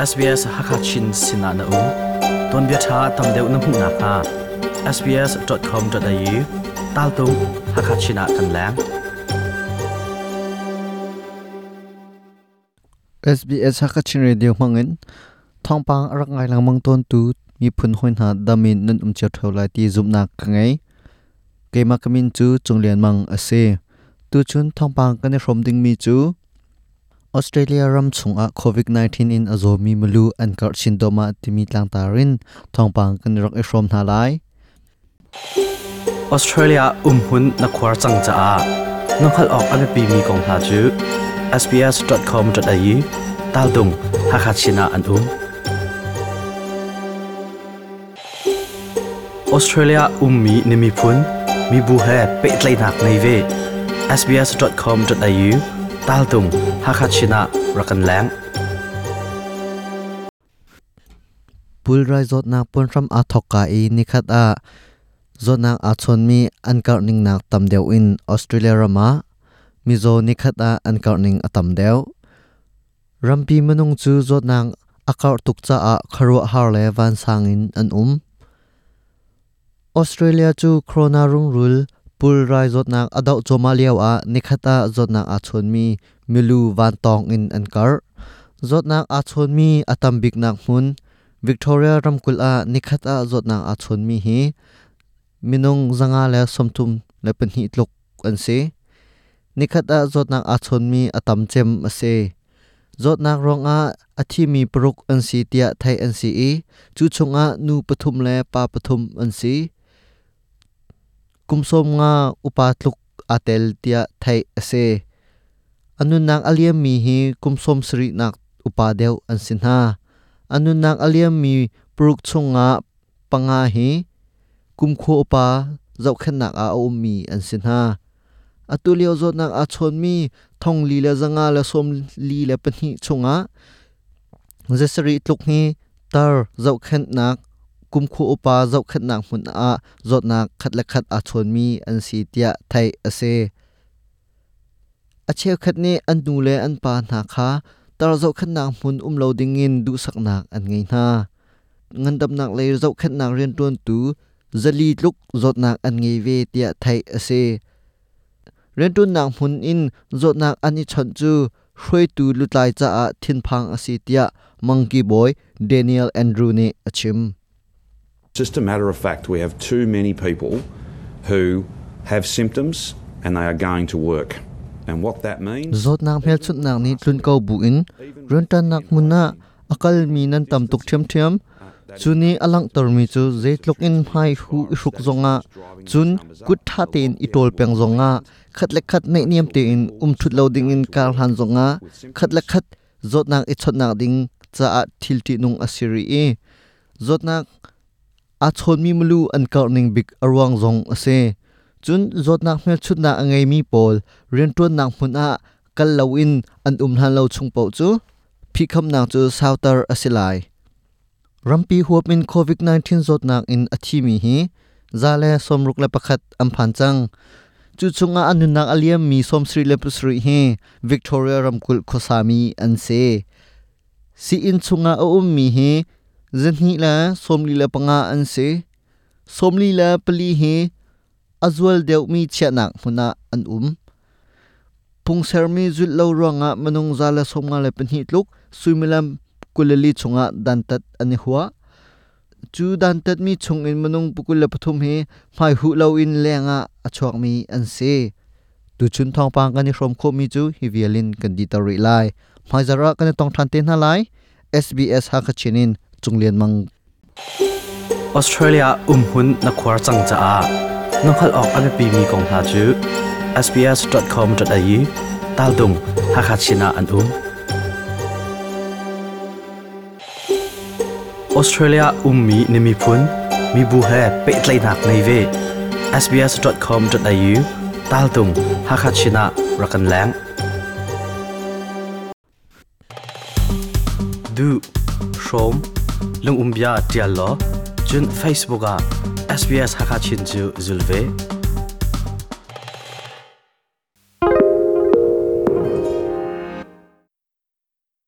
SBS Hakachin sinah na um. Tuanbia ṭha tam deuh na hmuh nakhnga sbs.com.au taltung Hakachin ah kan leng. SBS Hakachin Radio hmangin thawngpang a rak ngai lengmang tawntu miphun hawi hna dam in nan um cio ṭheo lai ti zumhnak ka ngei. Keimah ka min cu Cung Lian Mang a si. Tuchun thawngpang kan i hrawm dingmi cu Australia ram chungah COVID-19 in a zawmi milu an karh chin dawhmah timi tlangtar in thawngpang kan rak i hrawm hna lai. Australia umhmun na khuar cang caah na hngalh awk a biapimi kong hna cu sbs.com.au taltung Hakha Chin ah an um. Australia ummi na miphun, mibu he pehtlaihnak ngei ve. sbs.com.au taltung Hakha Chin ah rak kan leng. Pulrai zawtnak puanhram aa thawkka i nikhat ah zawtnak aa chawnmi an karh ning nak tam deuh in Australia ram ah mizaw nikhat ah an karh ning a tam deuh. Rampi minung cu zawtnak a karh tuk caah khuaruahhar le vansang in an um. Australia cu corona rungrul pulrai zawtnak a doh cuahmah lio ah nikhat ah zawtnak aa chawnmi milu vantawng in an karh. Zawtnak aa chawnmi a tam biknak hmun Victoria ramkulh ah nikhat ah zawtnak aa chawnmi hi minung 132 tluk an si. Nikhat ah zawtnak aa chawnmi a tam cem a si. Zawtnak ruangah a thimi paruk an si tiah theih an si i cu chungah nu pathum le pa pathum an si. Kum 50 upa tluk aa tel tiah theih a si. A nunnak a liammi hi kum 70 nak upa deuh an si hna. A nunnak a liammi paruk chungah panga hi kumkhua upa zohkhenhnak ah a ummi an si hna. Atu lio zawtnak aa chawnmi 4,142 chungah 7 tluk hi tar zohkhenhnak kumkhua upa zohkhenhnak hmun ah zawtnak khat le khat aa chawnmi an si tiah theih a si. A cheukhat nih an nu le an pa hna kha tar zohkhenhnak hmun um lo dingin duhsaknak an ngei hna. Ngandamnak lei zohkhenhnak rianṭuantu 400 tluk zawtnak an ngei ve tiah theih a si. Rianṭuannak hmun in zawtnak an i chawnh cu hruaitu lutlai caah thinphang a si tiah Mangki bawi Daniel Andrew nih a chim. Just a matter of fact, we have too many people who have symptoms and they are going to work. And what that means Zawtnak hmelchunhnak nih tlun ko buin rianṭannak hmun ah a kalmi nan tam tuk ṭhiamṭhiam. Cu nih a langhtermi cu zeitluk in hmai hu i hruk zongah cun kut ṭha tein i ṭawl peng zongah khat le khat naihniam tein um ṭhut lo dingin kar hlan zongah khat le khat zawtnak i chawnhnak ding caah thil ṭihnung a si rih i zawtnak aa chawnmi milu an karh ning bik a ruang zong a si. Cun zawtnak hmelchunhnak a ngeimi pawl rianṭuannak hmun ah kal loin an um hlan lo chung paoh cu phihkhamnak cu sauter a si lai. Rampi huap in COVID-19 zawtnak in a thimi hi 161 an phan cang. Cu chungah a nunnak a liammi 77 hi Victoria ramkulh khuasami an si. Sii-inn chungah a ummi hi 245 an si. 44 hi a zual deuhmi chiahnak hmun ah an um. Phungsermi zulh lo ruangah minung 152 tluk suimilam 24 chungah dantat an i huah. Cu dantatmi chungin minung 23 hi hmaihuh loin lengah a chuakmi an si. Tuchun thawngpang kan i hrawm khawhmi cu hi vial in kan diter rih lai. Hmaizarh ah kan i tong ṭhan te hna lai. SBS Hakha Chin in Cung Lian Mang. Australia umhmun na khuar cang caah na hngalh awk a biapimi kong hna cu sbs.com.au taltung Hakha Chin ah an um. Australia ummi na miphun, mibu he pehtlaihnak ngei ve. sbs.com.au taltung Hakha Chin ah rak kan leng. Duh, hrawm, lungumbia ṭial law, cun Facebook ah SBS Hakha Chin cu zul ve.